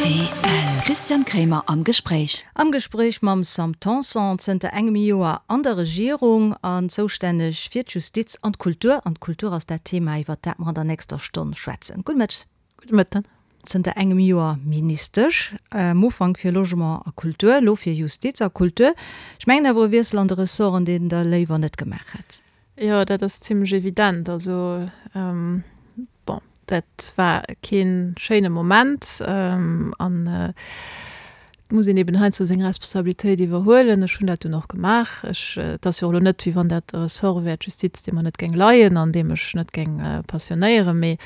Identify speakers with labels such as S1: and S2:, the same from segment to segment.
S1: Rtl. Christian Kremer am Gespréich.
S2: Am Gespréich mam Sam Tanson, zënter engem Joer an der Regierung an zoustänneg fir d'Justiz an d'Kultur. An d'Kultur ass dat Thema, iwwert dat mer an der nächster Stonn schwätzen. Gudde Mëtteg.
S3: Gudde Mëtten.
S2: Zënter engem Joer Ministesch, am Ufank fir Logement a Kultur, elo fir Justiz a Kultur. Ech mengen awer e Wiessel an de Ressorten, deen Der léiwer net gemaach hätt.
S3: Jo, dat ass zimlech evident. Also, bon, dat war kee schéine Moment an et muss een eben heiansdo seng Responsabilitéit iwwerhuelen. Ech hunn dat dunn och gemaach. Ech, et ass jo och elo net, wéi wann dat e Ressort wär, d'Justiz, dee mer net géing leien an deem ech net géing passionéieren, mee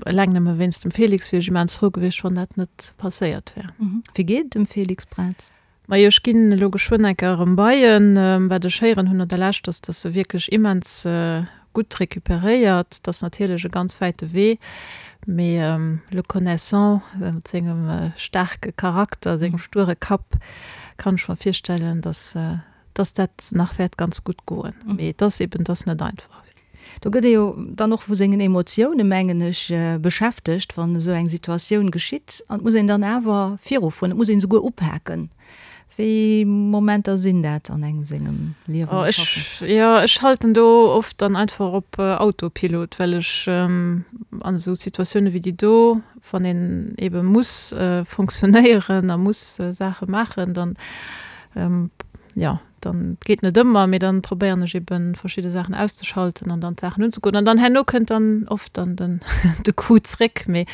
S3: Eleng nëmme wéinst dem Félix wier ech immens frou gewiescht, wann dat net passéiert wär.
S2: Wéi geet et dem Félix Braz?
S3: Majo, ech ginn elo geschwënn eng Kéier erëm bei en. Wat ech héieren hunn no der Lescht, ass, dass e wierklech immens gutt recuperéiert. Et ass natierlech e ganz wäite Wee, mee le connaissant, mat sengem staarke Charakter, sengem sture Kapp, kann ech mer virstellen, dass dass dat nach wäert ganz gutt goen. Mee et ass eben, et ass net einfach.
S2: Do gëtt ee jo dann och vu sengen Emotioune, mengen ech, beschäftegt, wann esou eng Situatioun geschitt. An et muss een dann awer virufueren, et muss een esouguer upaken. Wéi Momenter sinn dat an engem sengem Liewen
S3: a Schaffen? Jo, ech schalten do oft dann einfach op Autopilot, well ech an esou Situatioune wéi déi do, wann een ebe muss fonctionnéieren a muss Saache maachen, dann Jo, dann, et geet net ëmmer, mee dann probéieren ech eben verschidde Saachen auszeschalten an dann d'Saachen unzegoen. An dann herno kënnt dann oft dann den de Coup zréck, mee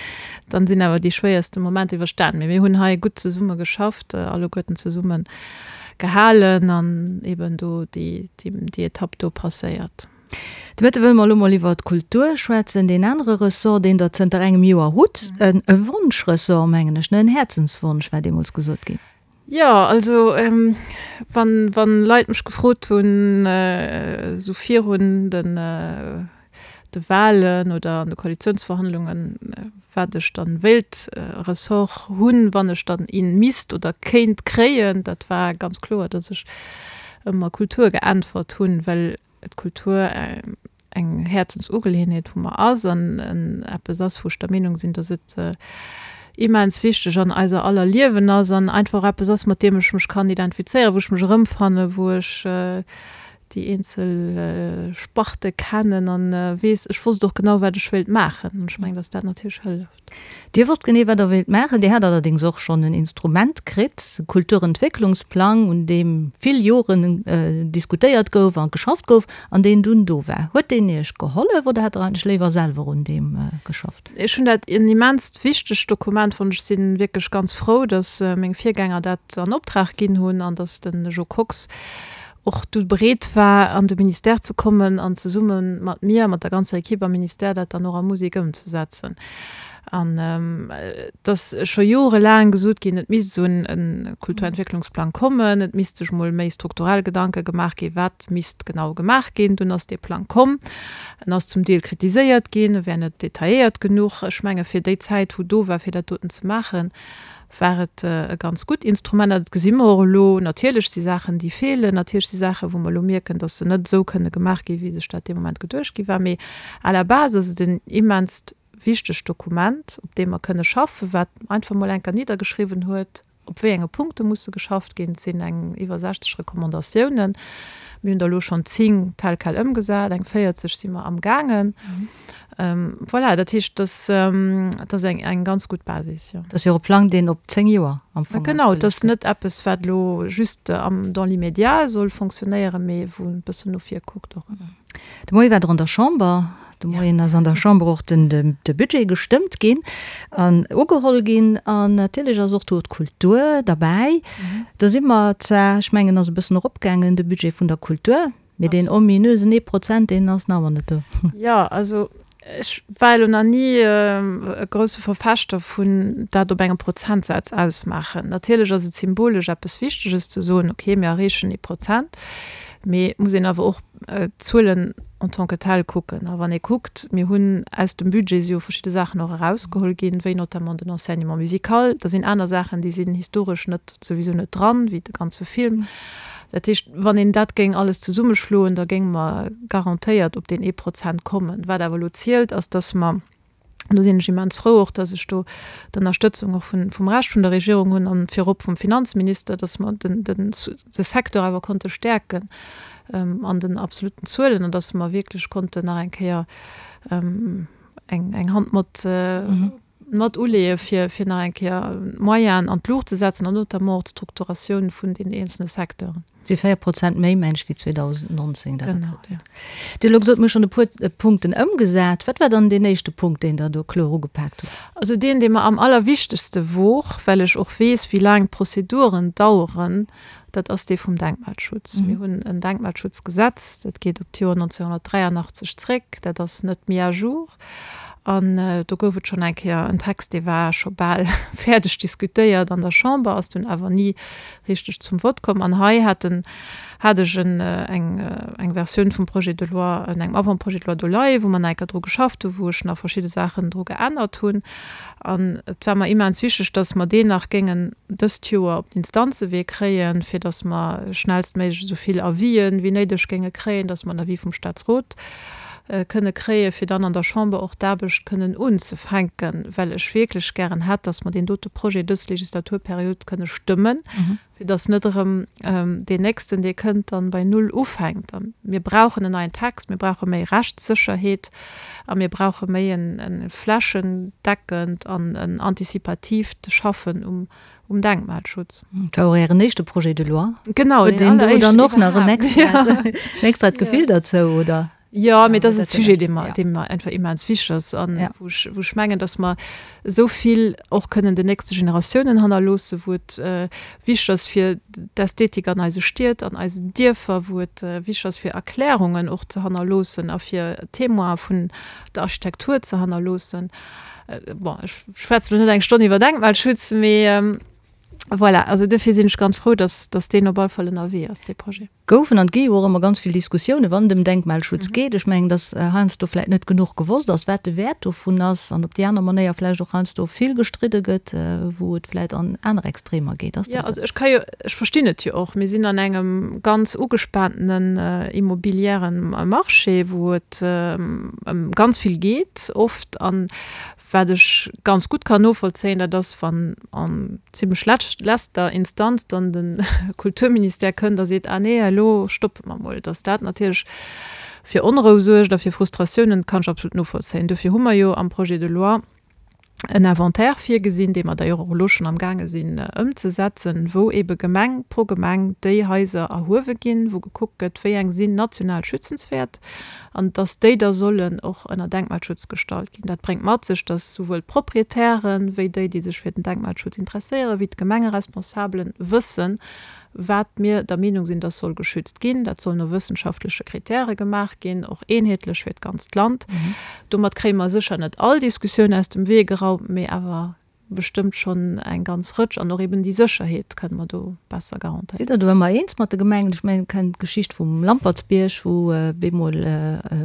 S3: dann sinn awer déi schwéierste Momenter iwwerstan. Mee mir hunn hei gutt zesumme geschafft, alleguerten zesumme gehalen an eben do déi déi Etapp do passéiert.
S2: De Mëtte wëlle mer elo mol iwwer d'Kultur schwätzen, deen anere Ressort, deen Der zënter engem Joer hutt. E Wonschressort, mengen ech, ne? En Häerzenswonsch war deemools gesot ginn.
S3: Jo, also wann, wann Leit mech gefrot hunn, esou virun den de Wahlen oder an de Koalitiounsverhandlungen, wat ech dann wéilt Ressort hunn, wann ech dann een misst oder kéint kréien, dat war ganz kloer, datt ech ëmmer Kultur geäntwert hunn, well d'Kultur eng Häerzensugeleeënheet vu mer ass an eppes ass, wou ech der Meenung sinn, datt et immens wichteg an eiser aller Liewen ass an einfach och eppes ass, mat deem ech mech kann identifizéieren, wou ech mech erëmfannen, wou ech déi eenzel Sparte kennen an weess, ech wosst och genau, wat ech wéilt maachen. An ech mengen, datt dat natierlech hëlleft.
S2: Dir wosst genee, wat Der wéilt maachen. Dir hat allerdéngs och schonn en Instrument kritt, e Kulturentwécklungsplang, un deem vill Joren diskutéiert gouf a geschafft gouf an deen dunn do war. Huet deen Iech gehollef oder hätt Der eigentlech léiwer selwer un deem geschafft?
S3: Ech hunn dat en immenst wichtegt Dokument fonnt. Ech si wierklech ganz frou, datt meng Virgänger dat an Optrag ginn hunn an datt de Jo Kox och du bereet war, an de Ministère ze kommen an zesumme mat mir, mat der ganzer Equipe am Ministère, dat dann och a Musek ëmzesetzen. An et ass scho jorelaang gesot ginn, et misst esou e Kulturentwécklungsplang kommen, et misst sech mol méi strukturell Gedanke gemaach ginn, wat misst genau gemaach ginn. Dunn ass dee Plang komm. En ass zum Deel kritiséiert ginn, e wär net detailléiert genuch. Ech menge fir déi Zäit, wou do war, fir dat doten ze maachen, war et e ganz gutt Instrument. An dat gesi mer och elo. Natierlech si Saachen, déi feelen. Natierlech si Saachen, wou mer elo mierken, datt se net esou kënne gemaach ginn, wéi sech dat dee Moment geduecht gi war. Mee à la base ass et en immenst wichtegt Dokument, op deem mer kënne schaffen, wat einfach mol eng Kéier niddergeschriwwen huet, op wéi enge Punkte musse geschafft ginn. Et sinn eng iwwer 60 Recommandatiounen. Mir hunn der elo schonn 10 tel quel ëmgesat, eng 40 si mer amgaangen. Voilà, dat heescht, dass dat ass eng eng ganz gutt Basis, jo.
S2: Dat ass jo och e Plang, deen op 10 Joer am
S3: Fong Genau, et ass net eppes, wat elo just am dans l'immédiat soll fonctionnéieren, mee wou e bëssen no vir kuckt och.
S2: De Moie war Der an der Chamber. De Moien ass an der Chamber och den de Budget gestëmmt ginn an ugeholl ginn. An natierlech ass och do d'Kultur derbäi. Do si mer zwar, ech mengen, ass e bëssen eropgaangen, de Budget vun der Kultur. Mee deen ominösen ee Prozent, deen ass nach ëmmer net do.
S3: Jo, also ech war elo nach ni e grousse Verfechter vun dat op engem Prozentsaz ausmaachen. Natierlech ass et symbolesch eppes Wichteges ze soen, okay, mir erreechen ee Prozent, mee et muss een awer och d'Zuelen en tant que tel kucken. A wann ee kuckt, mir hunn aus dem Budget si jo verschidde Saachen och erausgeholl ginn, wéi notamment den Enseignement musical, da sinn aner Saachen, déi sinn historesch net, souwisou net dran, wéi de ganze Film. Dat heescht, wann een dat géing alles zesummeschloen, da géinge mer garantéiert op deen ee Prozent kommen. Wat awer elo zielt, ass, dass mer. An do sinn ech immens frou och, dass ech do d'Ënnerstëtzung och vun, vum Rescht vun der Regierung hunn an virop vum Finanzminister, dass mer den, den, de Secteur awer konnte stäerken an den absoluten Zuelen an dass mer wierklech konnten nach eng Kéier eng, eng Hand mat, mat uleeë fir, fir nach eng Kéier d'Moyenen an d'Luucht ze setzen an notamment och d'Strukturatioun vun den eenzelne Secteuren.
S2: Si 4 Prozent méi, meng ech, wéi 2019 dat Genau, ja. Dir hutt elo gesot, mir hu schonn e puer Punkten ëmgesat. Wat war dann deen éischte Punkt, deen Der do kloer ugepaakt hutt?
S3: Also deen, dee mer am allerwichtegste wor, well ech och weess, wéi laang d'Prozeduren daueren, dat ass dee vum Denkmalschutz. Mir hunn en Denkmalschutzgesetz, dat geet op d'Joer 1983 zréck, dat ass net mis à jour. An do gouf et schonn eng Kéier en Text, dee war scho bal fäerdeg diskutéiert an der Chamber, ass dunn awer ni richteg zum Vott komm. An hei hat en, hat ech en, eng, eng Versioun vum Projet de loi, en engem Avant-projet de loi do leien, wou mer nach eng Kéier dru geschafft hunn, wou ech nach verschidde Saachen dru geännert hunn. An et war mer immens wichteg, dass mer deen nach géingen dëst Joer op den Instanzewee kréien, fir dass mer schnellstméiglech esou vill Avisen wéi néideg géinge kréien, dass mer en Avis vum Statsrot kënne kréien, fir dann an der Chamber och d'Aarbecht kënnen unzefänken, well ech wierklech gären hätt, dass mer deen dote Projet dës Legislaturperiod kënne stëmmen, fir dass net erëm deen nächsten, dee kënnt, dann bei Null ufänkt. A mir brauchen en neien Text, mir brauche méi Rechtssécherheet a mir brauche méi e flächendeckend an en antizipatiivt Schaffen um um Denkmalschutz.
S2: Dat war och Ären éischte Projet de loi.
S3: Genau,
S2: Huet een do dann och nach en extrat, en extrat Gefill derzou, oder?
S3: Jo, mee dat ass e Sujet, dee mer, dee mer einfach immens wichteg ass an wou ech, wou ech mengen, datt mer esou vill och kënnen den nächste Generatiounen hannerloossen, wou et wichteg ass fir d'Ästhetik an eise Stied, an eisen Dierfer, wou et wichteg ass fir Erklärungen och ze hannerloossen a fir Témoine vun der Architektur ze hannerloossen. Bon, ech schwätze lo net eng Stonn iwwer Denkmalschutz, mee voilà, also duerfir sinn ech ganz frou, dass, dass deen op alle Fall ënnerwee ass, dee Projet.
S2: Goufen an gi jo och ëmmer ganz vill Diskussiounen, wann et ëm Denkmalschutz geet. Ech mengen, dass heiansdo vläicht net genuch gewosst ass, wat de Wäert dovun ass an op déi aner Manéier vläicht och heiansdo vill gestridde gëtt, wou et vläicht an aner Extremer geet.
S3: Ass dat esou? Jo, also ech ka jo, ech verstinn et jo och. Mir sinn an engem ganz ugespaantenen immobiliären Marché, wou et ëm ganz vill geet oft. An wat ech ganz gutt kann novollzéien, dat ass, wann an zimlech letzter Instanz dann de Kulturministère kënnt a seet, ah nee, elo stoppe mer mol, datt dat natierlech fir Onrou suergt a fir Frustratiounen, kann ech absolut novollzéien. Dofir hu mer jo am Projet de loi en Inventaire virgesinn, dee mer d'ailleurs och elo schonn amgaange sinn ëmzesetzen, wou eebe Gemeng pro Gemeng déi Haiser erhuewe ginn, wou gekuckt gëtt, wéi eng sinn national schützenswäert an dass déi da sollen och ënner Denkmalschutz gestallt ginn. Dat bréngt mat sech, dass souwuel d'Proprietären, wéi déi, déi sech fir den Denkmalschutz interesséieren, wéi d'Gemengeresponsabelen wëssen, wat mir der Meenung sinn, dass soll geschützt ginn. Dat soll no wëssenschaftleche Kritäre gemaach ginn, och eenheetlech fir d'ganzt Land. Domat kréie mer sécher net all Diskussioun aus dem Wee geraumt, mee awer bestëmmt schonn eng ganz Rëtsch. An och eben déi Sécherheet kënne mer do besser garantéieren.
S2: Sidd Der do ëmmer eens mat de Gemengen? Ech mengen, kennt d'Geschicht vum Lampertsbierg, wou bemol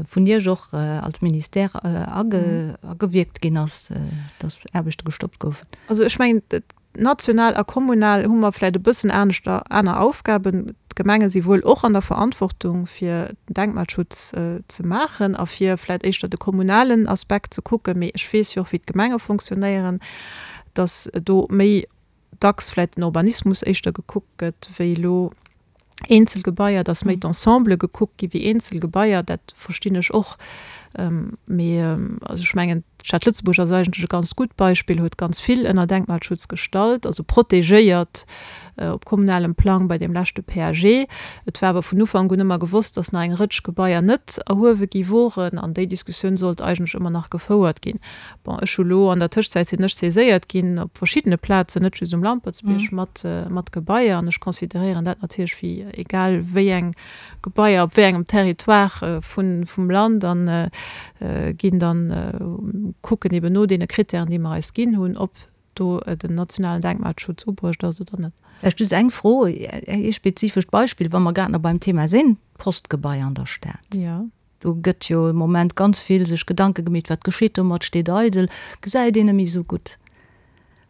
S2: vun Iech och als Ministère agewierkt ginn ass, dass Aarbechte gestoppt goufen.
S3: Also ech mengen, National a kommunal hu mer vläicht e bëssen aneschter, aner Aufgaben. D'Gemenge si wuel och an der Verantwortung, fir den Denkmalschutz ze maachen a fir vläicht éischter de kommunalen Aspekt ze kucken. Mee ech weess jo och, wéi d'Gemenge fonctionnéieren, dass do méi dacks vläicht den Urbanismus éischter gekuckt gëtt wéi elo eenzel Gebaier, dass méi d'Ensemble gekuckt gi wéi eenzel Gebaier, dat verstinn ech och. Mee also ech mengen, d'Stad Lëtzebuerg ass eigentlech e ganz gutt Beispill, huet ganz vill ënner Denkmalschutz gestallt, also protegéiert op kommunalem Plang bei deem leschte PAG. Et war awer vun Ufank un ëmmer gewosst, dass nach eng Rëtsch Gebaier net erhuewe gi woren an déi Diskussioun sollt eigentlech ëmmer nach gefouert ginn. Bon, ech hu lo, an der Tëschzäit sinn ech saiséiert ginn op verschiddene Plazen, net just um Lampertsbierg, mat, mat Gebaier. An ech consideréieren dat natierlech wéi egal wéi eng Gebaier op wéi engem Territoire vun, vum Land an ginn dann, kucken eben no deene Kritären, déi mer eis ginn hunn, ob do den nationalen Denkmalschutz ubruecht ass oder net.
S2: Vläicht just eng Fro, ee spezifescht Beispill, wa mer grad nach beim Thema sinn, d'Postgebai an der Stad.
S3: Jo.
S2: Do gëtt jo am Moment ganz vill sech Gedanke gemeet, wat geschitt domat, steet eidel, gesäit een net méi esou gutt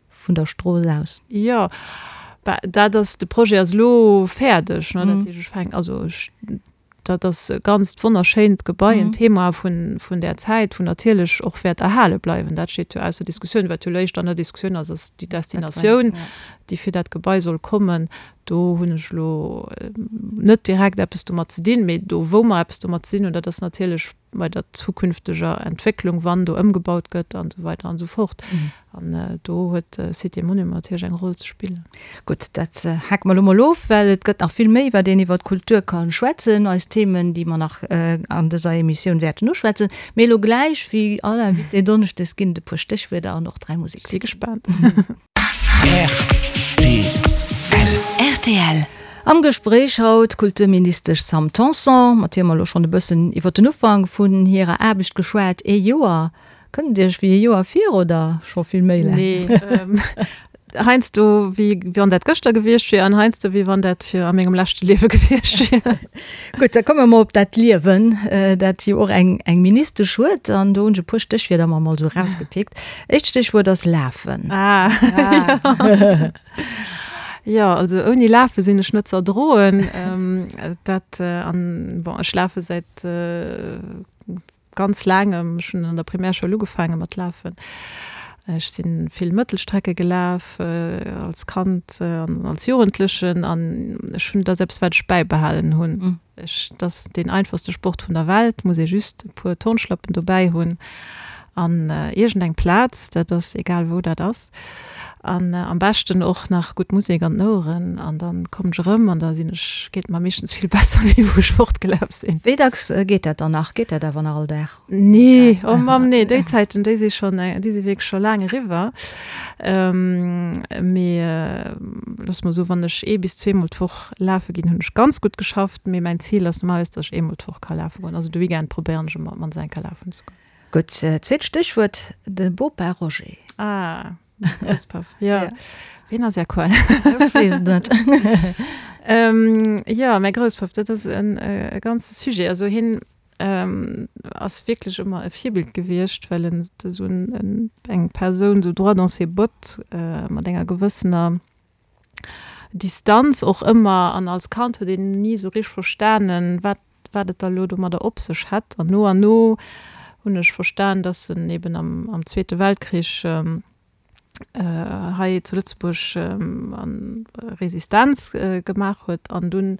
S2: vun der Strooss aus.
S3: Jo, bah, dat ass, de Projet ass elo fäerdeg, ne, dat heescht, ech fänken, also ech. Dat ass e ganzt wonnerschéint Gebai, en Thema vun, vun där Zäit, wou natierlech och wäert erhale bleiwen. Dat steet jo ausser Diskussioun. Wat jo elo éischter an der Diskussioun ass, ass déi Destinatioun, déi fir dat Gebai soll kommen. Do hunn ech elo net direkt eppes domat ze dinn, mee do wou mer eppes domat ze dinn hunn, dat ass natierlech bei der zukünfteger Entwécklung, wann do ëmgebaut gëtt an esou weider an esou fort. An do huet Cité Monument natierlech eng Roll ze spillen.
S2: Gutt, dat hake mer elo mol of, well et gëtt nach vill méi, wat een iwwer d'Kultur ka schwätzen, eis Themen, déi mer nach an dëser Emissioun wäerten uschwätzen. Mee elo gläich, wéi all Invité donneschdes, ginn et e puer Stéchwierder an och 3 Musekslidd.
S3: Si gespaant.
S2: Rtl. Am Gespréich haut d'Kulturministesch Sam Tanson, mat hir mer elo schonn e bëssen iwwer den Ufank vun hirer Aarbecht geschwat. Ee Joer, kënnt et Iech wéi ee Joer vir oder scho vill méi laang?
S3: Nee, heiansdo wéi wann dat gëschter gewiescht wier an heiansdo wéi wann dat fir a mengem leschte Liewe gewiescht wier.
S2: Gutt, da komme mer mol op dat Liewen, dat jo och eng eng Ministesch huet. An do hunn ech e puer Stéchwierder mer mol esou erausgepickt. Éischt Stéchwuert ass lafen.
S3: Ah, jo. Jo, also ouni lafe sinn ech net ze erdroen. Dat an, bon, ech lafe säit ganz laangem, ech hunn an der Primärschoul ugefaange mat lafen. Ech si vill Mëttelstrecke gelaf als Kand an als Jugendlechen an ech hunn, dat ass eppes wat ech bäibehalen hunn. Ech, dat ass deen einfachste Sport vun der Welt, muss ee just e puer Turnschlappen dobäi hunn an iergendeng Plaz, dat ass egal wou dat ass an am beschten och nach gutt Musek an den Oueren an dann kommen ech erëm an da sinn ech, geet et mer meeschtens vill besser wéi wou ech fortgelaf sinn.
S2: Wéi dacks geet dat dann nach? Geet dat awer nach all Dag?
S3: Nee, oh Mamm, nee, déi Zäiten, déi si schonn, déi si wierklech scho laang eriwwer. Mee looss mer soen, wann ech ee bis zweemol d'Woch lafe ginn, hunn ech ganz gutt geschafft. Mee mäin Zil ass normalerweis, datt ech eemol d'Woch ka lafe goen. Also de Weekend probéieren ech ëmmer op d'mannst eng Kéier lafen ze goen.
S2: Gutt, zweet Stéchwuert, de Bopa Roger.
S3: Ah, mäi Grousspapp, jo. Ween ass Är Quell?
S2: Ech weess et net.
S3: Jo, mäi Grousspapp, dat ass e ganze Sujet. Also hien ass wierklech ëmmer e Virbild gewiescht, well en esou eng Persoun esou droit dans ses bottes, mat enger gewëssener Distanz och ëmmer. An als Kand huet een ni esou richteg verstanen, wat wat et da lo domadder op sech hätt. An no an no hunn ech verstan, dass en eben am, am Zweete Weltkrich hei zu Lëtzebuerg Resistenz gemaach huet an dunn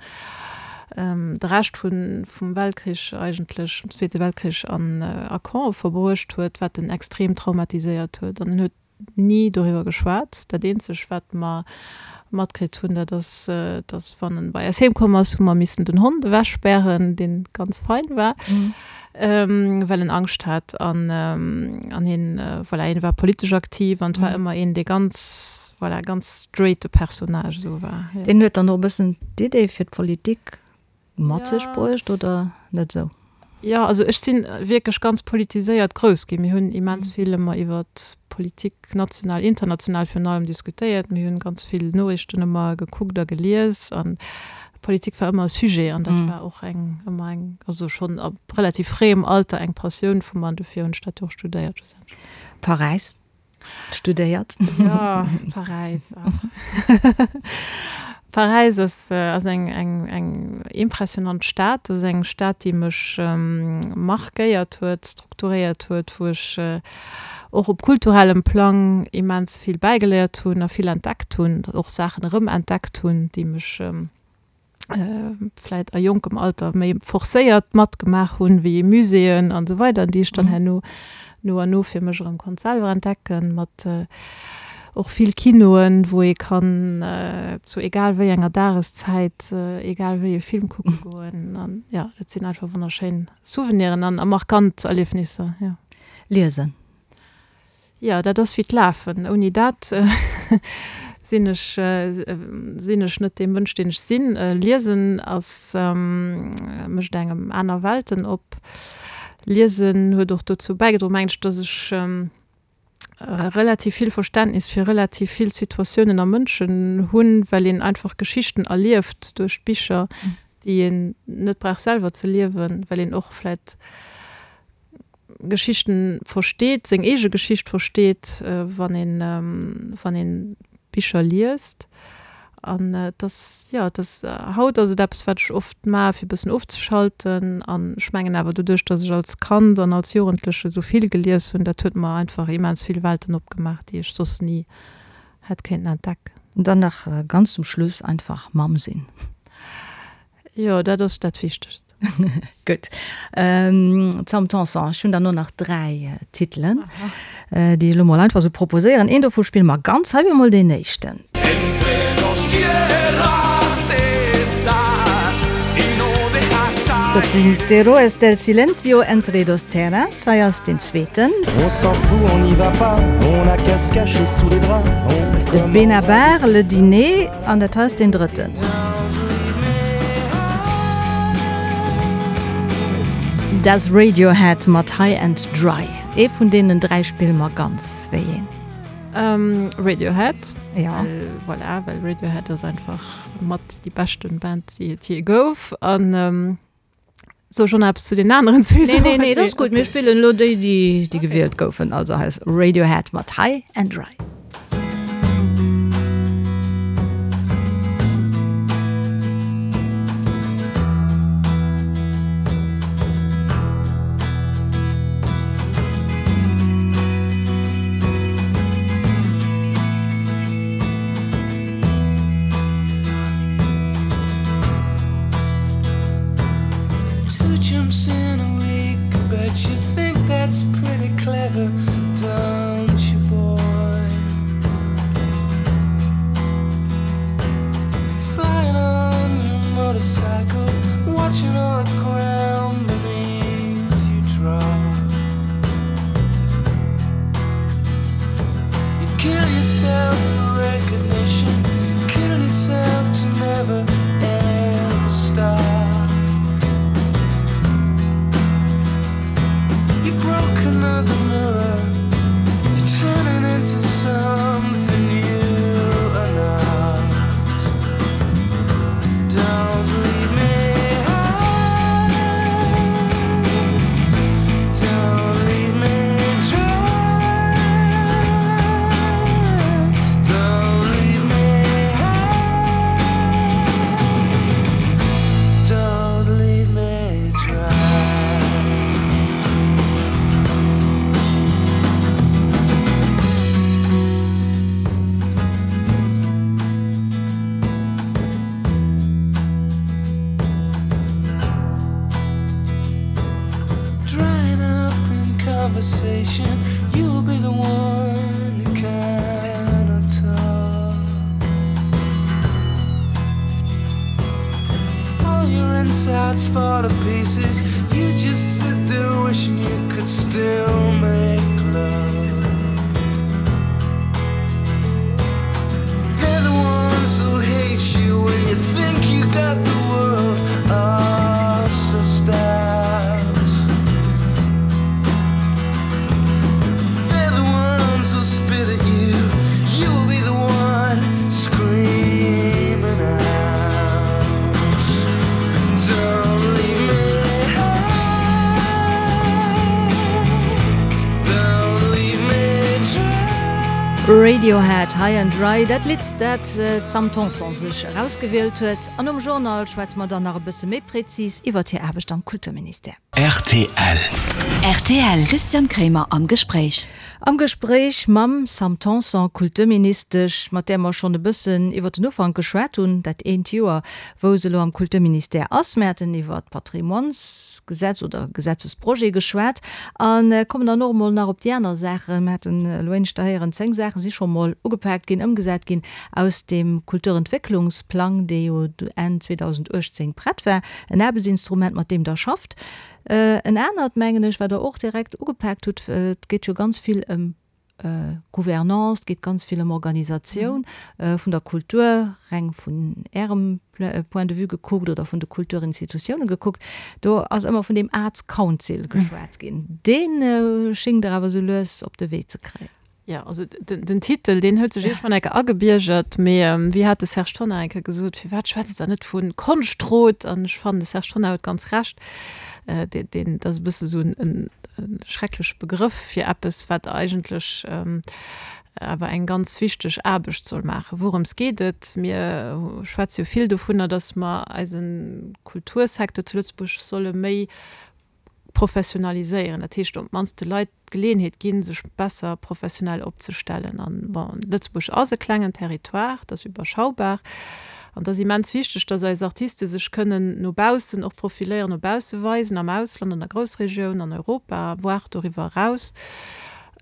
S3: de Rescht vun, vum Weltkrich eigentlech, vum Zweete Weltkrich an a Campe verbruecht huet, wat en extrem traumatiséiert huet. An en huet ni doriwwer geschwat. Dat eenzeg wat mer matkritt hunn, dat ass, dass wann en bei eis heem komm ass, hu mer missen den Hond ewechspären, deen ganz fein war, well en Angscht hat. An an hien, voilà, hien war politesch aktiv an et war ëmmer een, dee ganz, voilà, ganz straighte Personnage esou war,
S2: jo. Deen huet dann och e bëssen d'Idee fir d'Politik Mat sech bruecht oder net esou?
S3: Jo, also ech si wierklech ganz politiséiert grouss ginn. Mir hunn immens vill ëmmer iwwer Politik, national, international virun allem, diskutéiert. Mir hunn ganz vill Noriichten ëmmer gekuckt a gelies an Politik war ëmmer e Sujet an dat war och eng, ëmmer eng, also schonn ab relativ fréiem Alter eng Passioun vu mer an dofir hunn ech dat jo och studéiert schlussendlech.
S2: Paräis. Studéiert.
S3: Ja, Paräis. Paräis ass, ass eng, eng, eng impressionant Stad. Dat ass eng Stad, déi mech markéiert huet, strukturéiert huet, wou ech och op kulturellem Plang immens vill bäigeléiert hunn a vill entdeckt hunn, och Saachen erëmentdeckt hunn, déi mech vläit a jonkem Alter méi forcéiert matgemaach hunn, wéi Muséeën an esou weider, déi ech dann herno no an no fir mech erëm konnt selwer entdecken, mat och vill Kinoen, wou ee kann zu egal wéi enger Dageszäit egal wéi e Film kucke goen. An jo, dat sinn einfach wonnerschéin Souveniren an a markant Erliefnisser, jo.
S2: Liesen.
S3: Jo, dat ass wéi d'Lafen. Ouni dat sinn ech, sinn ech net dee Mënsch, deen ech sinn. Liesen ass, mécht engem aner Welten op. Liesen huet och dozou bäigedroen, mengen ech, dass ech relativ vill Verständnis fir relativ vill Situatiounen a Mënschen hunn, well een einfach Geschichten erlieft duerch d'Bicher, déi een net brauch selwer ze liewen, well een och vläit Geschichten versteet, seng eege Geschicht versteet, wann een, wann een Bicher liest. An et ass, jo, et ass, haut ass et eppes, wat ech oft maache fir e bëssen ofzeschalten. An ech mengen awer doduerch, datt ech als Kand an als Jugendleche sou vill gelies hunn, dat huet mer einfach immens vill Welten opgemaach, déi ech soss ni hätt kéinten entdecken.
S2: An dann nach ganz zum Schluss, einfach Mamm sinn.
S3: Jo, dat ass dat Wichtegst.
S2: Gutt. Sam Tanson, ech hunn der no nach 3 Titelen, déi ech elo mol einfach esou proposéieren. Een dovu spille mer ganz. Hei wier mol deen éischten. Dat sinn d'Héroes del Silencio, Entre dos Terras. Hei ass deen zweeten. Dat ass de Benabar, Le Dîner. An dat hei ass deen drëtten. Das Radiohead mat High and Dry. Ee vun deenen 3 spille mer ganz. Wéi een?
S3: Radiohead. Ja. Well, voilà, well Radiohead ass einfach mat déi beschten Band, déi et jee gouf. An soll ech och nach eppes zu den aneren
S2: zwee soen? Nee, nee, nee, dat ass gutt. Mir spillen elo déi, déi, déi gewielt goufen. Also hei ass Radiohead mat High and Dry. Radiohead, High and Dry, dat Lidd, dat d'Sam Tanson sech erausgewielt huet. An nom Journal schwätze mer dann nach e bësse méi prezis iwwert hir Aarbecht am Kulturministère.
S1: Rtl. Rtl, Christian Kremer am Gespréich.
S2: Am Gespréich mam Sam Tanson, Kulturministesch, mat där mer schonn e bëssen iwwer den Ufank geschwat hunn, dat eent Joer, wou se elo am Kulturministère ass. Mir haten iwwer d'Patrimoinesgesetz oder Gesetzesprojet geschwat a kommen dann och emol nach op déi aner Saachen. Mir haten elo éineschter héieren, 10 Saache si scho mol ugepaakt ginn, ëmgesat ginn aus deem Kulturentwécklungsplang, dee jo Enn 2018 prett war. En Aarbechtsinstrument, mat deem Der schafft. En anert, mengen ech, wat Der och direkt ugepaakt hutt, et geet jo ganz vill ëm Gouvernance, et geet ganz vill ëm Organisatioun vun der Kultur, reng vun Ärem Point de vue gekuckt oder vun de Kulturinstitutiounen gekuckt. Do ass ëmmer vun deem Arts Council geschwat ginn. Dee schéngt Der awer esou lues op de Wee ze kréien.
S3: Jo, also den Titel, deen huet sech iergendwann eng Kéier agebiergert, mee wéi hat de Serge Tonnar eng Kéier gesot, firwat schwätzt Der net vu Konschtrot? An ech fannen, de Serge Tonnar huet ganz Recht, deen, dat ass e bësse sou en schreckleche Begrëff fir eppes, wat eigentlech. awer eng ganz wichteg Aarbecht soll maachen. Wourëms geet et? Mir schwätze jo vill dovunner, datt mer eise Kultursecteur zu Lëtzebuerg solle méi professionaliséieren, dat heescht op d'mannst de Leit d'Geleeënheet ginn, sech besser professionell opzestellen. An, bon, Lëtzebuerg ass e klengen Territoire, et ass überschaubar an et ass immens wichteg, datt eis Artiste sech kënnen no baussen och profiléieren, no bausse weisen, am Ausland, an der Groussregioun, an Europa, voire doriwwer eraus.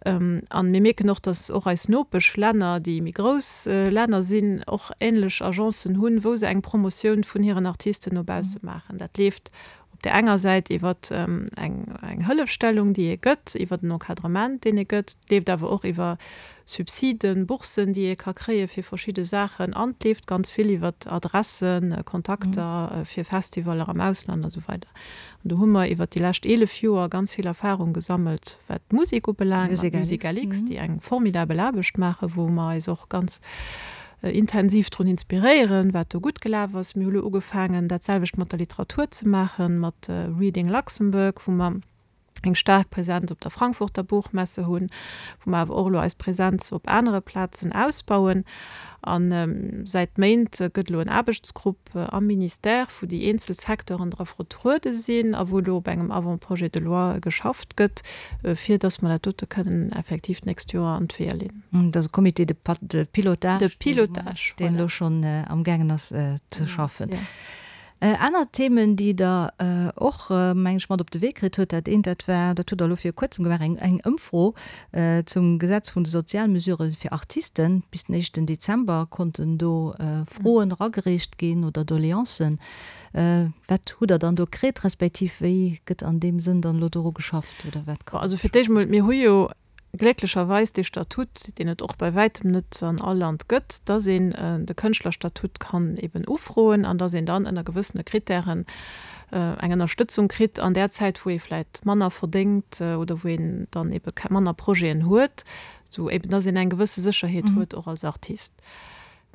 S3: An mir mierken och, datt och eis Nopeschlänner, déi méi grouss Länner sinn, och änlech Agencen hunn, wou se eng Promotioun vun hiren Artisten no bausse maachen. Dat leeft Op där enger Säit iwwer eng Hëllefstellung, déi ee gëtt, iwwer en Encadrement, deen ee gëtt. Et leeft awer och iwwer Subsiden, Boursen, déi ee ka kréie fir verschidde Saachen. An et leeft ganz vill iwwer Adressen, Kontakter fir Festivaller am Ausland a sou weider. An do hu mer iwwer déi lescht 11 Joer ganz vill Erfahrung gesammelt, wat d'Musek ubelaangt, mat MusicalX, déi eng formidabel Aarbecht maachen, wou mer eis och ganz intensiv drun inspiréieren, wat do gutt gelaf ass. Mir hu lo ugefaangen, dat selwecht mat der Literatur ze maachen, mat Reading Luxembourg, wou mer eng staark Presenz op der Frankfurter Buchmesse hunn, wou mer awer och elo eis Presenz op anere Plazen ausbauen. A säit Méint gëtt elo en Aarbechtsgrupp am Ministère, wou déi eenzel Secteuren dra vertruede sinn a wou elo op engem Avant-projet de loi geschafft gëtt, fir datt mer dat dote kënnen effektiv d'nächst Joer an d'Weeër leeën.
S2: Dat ass e Comité de pilotage, de pilotage, deen elo schonn amgaangen ass ze schaffen. Aner Themen, déi Der och, meng ech, mat op de Wee kritt hutt, dat eent, dat war, dat hutt Der elo viru Kuerzem gemaach, eng eng Ëmfro zum Gesetz vun de Sozialmesurë fir Artisten. Bis den éischten Dezember konnten do Froen eragereecht ginn oder Doleancen. Wat hutt Der dann do kritt, respektiv wéi gëtt an deem Sënn dann elo doru geschafft oder wat
S3: kann. Also fir d'éischt emol, mir hu jo glécklecherweis dee Statut, deen et och bei wäitem net an all Land gëtt, dass een de Kënschtlerstatut kann eben ufroen an dass een dann ënner gewëssene Kritären eng Ënnerstëtzung kritt an där Zäit, wou ee vläicht manner verdéngt oder wou een dann ebe manner Projeten huet, sou eben dass een eng gewësse Sécherheet huet och als Artist.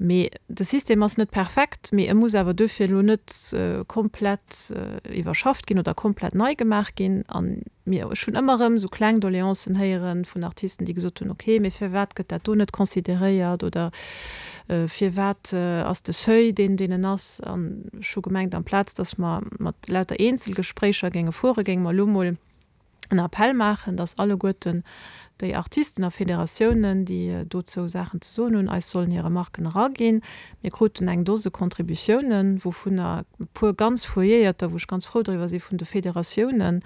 S3: Mee de System ass net perfekt, mee e muss awer duerfir elo net komplett iwwerschafft ginn oder komplett nei gemaach ginn. A mir, ech hunn ëmmer erëm esou kleng Doleancen héiere vun Artisten, déi gesot hunn, okay, mee firwat gëtt dat do net consideréiert oder firwat ass de Seuil deen, deen en ass? An ech hu gemengt, amplaz datt mer mat lauter Eenzelgespréicher géinge fuere, géinge mer elo mol en Appell maachen, dass alleguerten déi Artisten a Federatiounen, déi dozou Saachen ze soen hunn, eis sollen hir Remarken eraginn. Mir kruten eng Dose Contributiounen, wouvunner e puer ganz fouilléierter, wou ech ganz frou driwwer si vun de Federatiounen,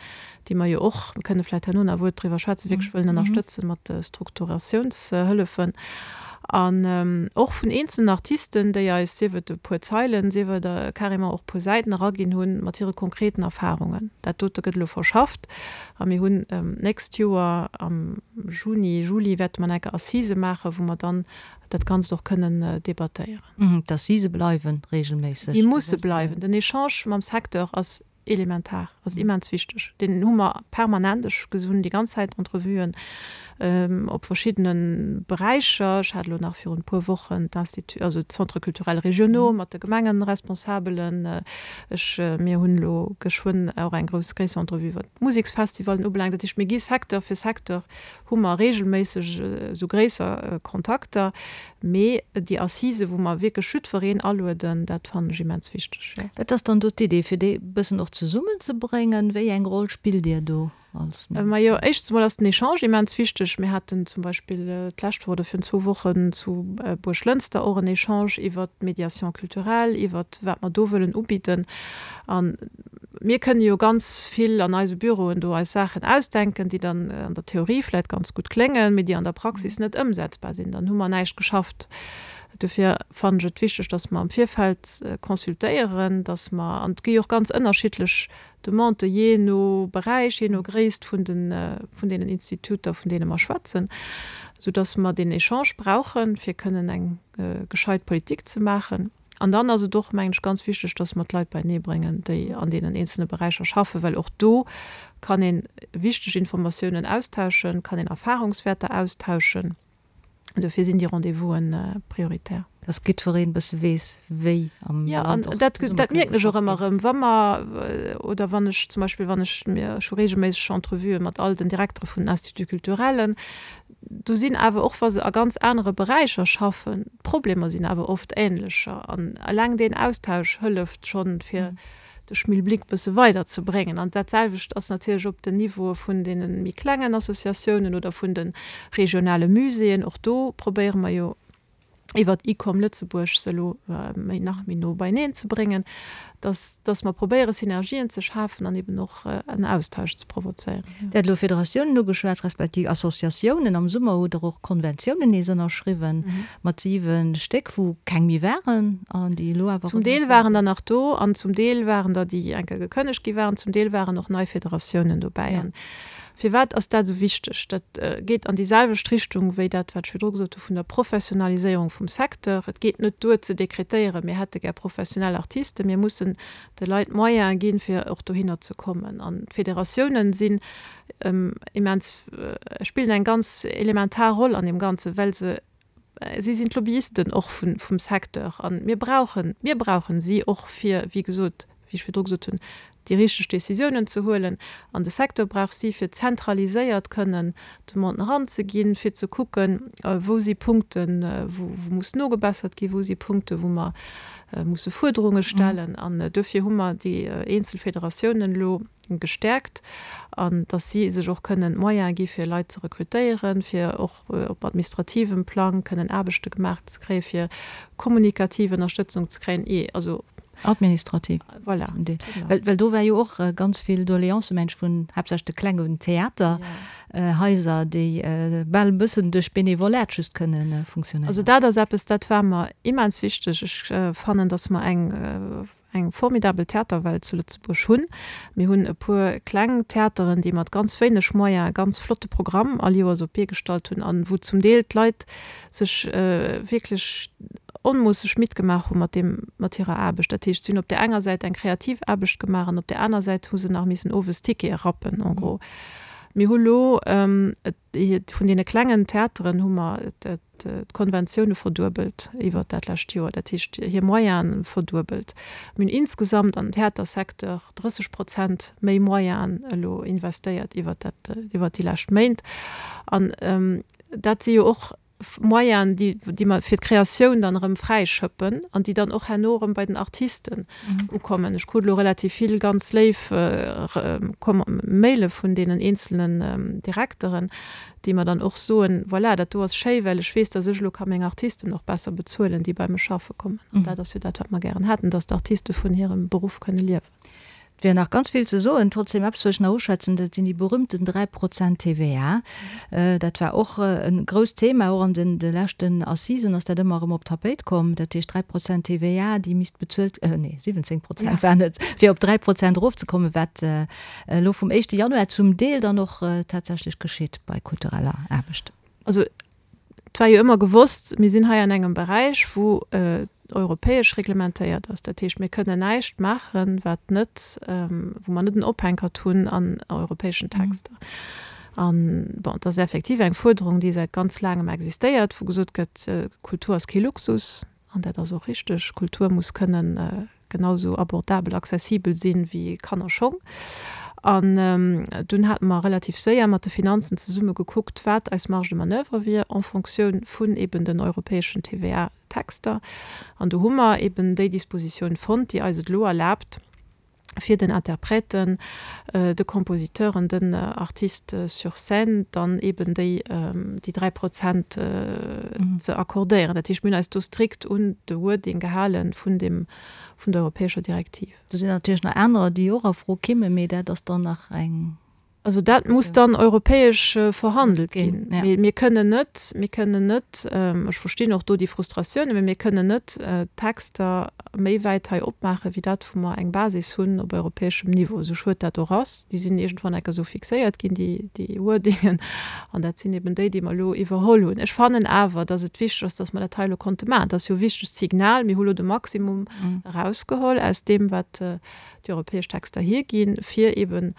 S3: déi mer jo och, mir kënne vläicht herno nach e Wuert driwwer schwätzen, wierklech wëllen ënnerstëtzen mat Strukturatiounshëllefen. An och vun eenzelnen Artisten, déi eis, sief et e puer Zeilen, sief et carrément och e puer Säiten eraginn hunn, mat hire konkreten Erfahrungen. Dat dote gëtt elo verschafft a mir hunn d'nächst Joer am Juni, Juli wäerte mer nach eng Kéier Assisë maachen, wou mer dann dat Ganzt och kënnen debattéieren.
S2: D'Assisë bleiwe regelméisseg?
S3: Déi musse bleiwen. Den Echange mam Secteur ass elementar, ass immens wichteg. Deen hu mer permanent. Ech hunn déi ganz Zäit Entrevuen op verschiddene Beräicher. Ech hat elo nach virun e puer Wochen d'Institut, also d'Centres culturels régionaux mat de Gemengenresponsabelen. Ech, mir hunn elo geschwënn och eng grouss, gréisser Entrevue wat d'Museksfestivallen ubelaangt. Dat heescht, mir gi Secteur fir Secteur hu mer regelméisseg esou gréisser Kontakter, mee déi Assisen, wou mer wierklech jiddwereen alueden, dat fannen ech immens wichteg, jo.
S2: Wat ass dann do d'Idee, fir déi e bëssen och zesummenzebréngen? Wéi eng Roll spillt Dir do als
S3: Minister? Majo, éischtens emol ass den Echange immens wichteg. Mir haten zum Beispill d'lescht Woch oder virun zwou Wochen zu Buerglënster och en Echange iwwert d'Médiation culturelle, iwwert wat mer do wëllen ubidden. An mir kënne jo ganz vill an eise Büroen do eis Saachen ausdenken, déi dann an der Theorie vläicht ganz gutt kléngen, mee déi an der Praxis net ëmsetzbar sinn. Dann hu mer näischt geschafft. Dofir fannen ech et wichteg, dass mer am Virfeld consultéieren, dass mer, an et gi jo och ganz ënnerschiddlech Demandë jee no Beräich, jee no Gréisst vun de vun deenen Instituter, vun deene mer schwätzen, soudass mer deen Echange brauchen, fir kënnen eng gescheit Politik ze maachen. An dann ass et och, mengen ech, ganz wichteg, dass mer d'Leit beienee bréngen, déi an deenen eenzelne Beräicher schaffen, well och do kann ee wichteg Informatiounen austauschen, kann een Erfahrungswäerter austauschen. Dofir sinn déi Rendez-vousen prioritär.
S2: Dass jiddwereen e bësse weess, wéi am
S3: Land och zesumme dat mierken ech och ëmmer erëm, wa mer oder wann ech zum Beispill, wann ech, mir, ech hu reegelméisseg Entrevuë mat all den Direktere vun den Instituts culturellen. do sinn awer, och wa se a ganz anere Beräicher schaffen, d'Problemer sinn awer oft änlecher. An eleng deen Austausch hëlleft schonn, fir de Schmilblick bësse weider ze bréngen. An dat selwecht ass natierlech op den Niveaue vun deene méi klengen Associatiounen oder vun de regionale Muséeën. Och do probéiere mer jo iwwert ICOM Lëtzebuerg se elo méi nach méi no beieneen ze bréngen, dass, dass mer probéiere Synergien ze schafen an eben och en Austausch ze provozéieren.
S2: Dir hat elo Federatiounen ugeschwat, respektiv Associatiounen. Am Summer hutt Der och Konventiounen nees ënnerschriwwen mat 7 Stéck, wou keng méi waren an déi elo awer
S3: Zum erëm Deel waren der nach do an zum Deel waren der, déi eng Kéier gekënnegt gi waren, zum Deel waren och nei Federatiounen dobäi. An Firwat ass dat esou wichteg? Dat geet an déi selwecht Richtung wéi dat, wat ech virdru gesot hu vun der Professionaliséierung vum Secteur. Et geet net duer ze dekretéieren, mir hätte gär professionell Artisten. Mir mussen de Leit d'Moyene ginn, fir och dohinner ze kommen. An d'Federatiounen sinn immens, spillen eng ganz elementar Roll an deem Ganzen, well se Si sinn d'Lobbyisten och vum Secteur a mir brauchen, mir brauchen si och fir, wéi gesot, wéi ech virdru gesot hunn, déi richteg Décisiounen ze huelen. An de Secteur brauch si fir zentraliséiert kënnen Demanden eranzeginn, fir ze kucken, wou si Punkten, wou muss nogebessert ginn, wou si Punkten, wou mer musse Fuerderunge stellen. An duerfir hu mer déi eenzel Federatiounen elo gestäerkt an dass si sech och kënnen d'Moyene gi fir Leit ze rekrutéieren, fir och op administrativem Plang kënnen Aarbechte gemaach ze kréien, fir kommunikativ Ënnerstëtzung ze kréien, ee also.
S2: Administrativ.
S3: Voilà.
S2: Zum Deel. Well, well do war jo och ganz vill Doleancë, mengen ech, vun haaptsächlech de klengen Theaterhaiser, déi bal e bëssen duerch Benevolat just kënne funktionéieren.
S3: Also dat ass eppes, dat war mer immens wichteg. Ech fannen, dass mer eng eng formidabel Theaterwelt zu Lëtzebuerg hunn. Mir hunn e puer kleng Theateren, déi mat ganz wéineg Moyene e ganz flotte Programm all Joers op d'Bee gestallt hunn an wou zum Deel d'Leit sech wierklech onmoosseg midd gemaach hu mat deem, mat hirer Aarbecht. Dat heescht, si hunn op där enger Säit eng kreativ Aarbecht gemaach an op där aner Säit hu se nach missen owes Tickete rappen en gros. Mir hu lo vun deene klengen Theateren hu mer d'Konventioune verduebelt iwwert dat lescht Joer, dat heescht hir Moyene verduebelt. Mir hunn insgesamt an den Theatersecteur 30 Prozent méi Moyenen elo investéiert iwwert dat, iwwert déi lescht Méint. An dat si jo och Moyenen, déi, déi mer fir d'Kreatioun dann erëm fräischëppen an déi dann och herno erëm bei den Artisten ukommen. Ech krut elo relativ vill ganz léif Maile vun deenen eenzelnen Direkteren, déi mer dann och soen, voilà, dat do ass schéi, well ech weess, dass ech elo ka meng Artisten och besser bezuelen, déi bei mech schaffe kommen. An dat ass jo dat, wat mer gären hätten, dass d'Artiste vun hirem Beruff kënne liewen.
S2: Et wier nach ganz vill ze soen. Trotzdem eppes wëll ech nach uschwätzen, dat sinn déi berühmten 3 Prozent TVA. Dat war och e grousst Thema, och an de leschten Assisen ass dat ëmmer erëm op d'Tapéit komm. Dat heescht 3 Prozent TVA, déi misst bezuelt, nee 17 Prozent waren et, fir op 3 Prozent erofzekommen, wat elo vum éischte Januar zum Deel dann och tatsächlech geschitt bei kultureller Aarbecht.
S3: Also et war jo ëmmer gewosst, mir sinn hei an engem Beräich, wou europäesch reglementéiert ass. Dat heescht, mir kënnen näischt maachen, wat net, wou mer net en Ophänkert hunn an europäeschen Texter. An, bon, et ass effektiv eng Fuerderung, déi säit ganz laangem existéiert, wou gesot gëtt, Kultur ass kee Luxus. An dat ass och richteg. Kultur muss kënnen genau esou abordabel, accessibel sinn wéi Kannerschong. An dunn hate mer relativ séier mat de Finanzen zesumme gekuckt, wat eis Marge de manoeuvre wier en Fonctioun vun eben den europäeschen TVA-Texter. An do hu mer eben déi Dispositioun fonnt, déi eis et elo erlaabt, fir den Interprèten, de Compositeuren, den Artistes sur scène dann eben déi déi 3 Prozent ze accordéieren. Dat heescht, mir hunn eis do strikt un de Wording gehale vun deem, vun der europäescher Direktiv.
S2: Do sinn natierlech nach anerer, déi och a Fro kimmen, mee dat ass dann nach eng.
S3: Also dat muss dann europäesch verhandelt ginn. Mee mir kënnen net, mir kënnen net, ech verstinn och do déi Frustratiounen, mee mir kënnen net d'Texter méi wäit hei opmaachen, wéi dat, wou mer eng Basis hunn op europäeschem Niveau, esou schued dat och ass. Déi sinn iergendwann enker esou fixéiert ginn, déi, déi Wordingen, an dat sinn eben déi, déi mer elo iwwerholl hunn. Ech fannen awer, datt et wichteg ass, datt mer dat hei elo konnte maachen. Dat ass jo e wichtegt Signal. Mir hu lo de Maximum erausgeholl aus deem, wat déi europäesch Texter hierginn, fir eben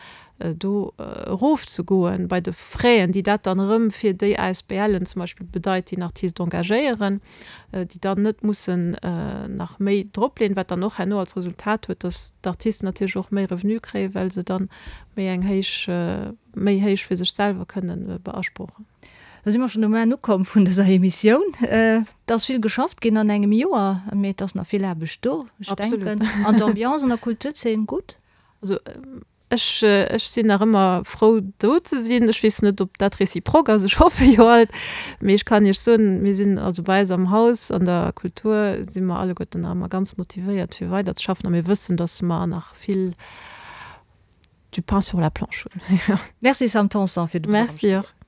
S3: do erofzegoen bei de Fräen, déi dat dann erëm fir déi ASBLen zum Beispill bedeit, déi en Artist engagéieren, déi dann net mussen nach méi dropleeën, wat dann och herno als Resultat huet, dass d'Artisten natierlech och méi Revenu kréien, well se dann méi eng héich, méi héich fir sech selwer kënnen beasprochen.
S2: Da si mer schonn um Enn ukomm vun dëser Emissioun. Et ass vill geschafft ginn an engem Joer, mee et ass nach vill Aarbecht do. Ech denken, an d'Ambiance an der Kulturzeen gutt?
S3: Also ech, ech sinn nach ëmmer frou do ze sinn. Ech weess net, ob dat réciproque ass, ech hoffe jo alt. Mee ech kann Iech soen, mir sinn also bei eis am Haus an der Kultur si mer alleguerten nach ëmmer ganz motivéiert fir weiderzeschaffen a mir wëssen, datt mer nach vill du pain sur la planche hunn.
S2: Merci Sam Tanson fir de
S3: Besuch am Studio. Merci och.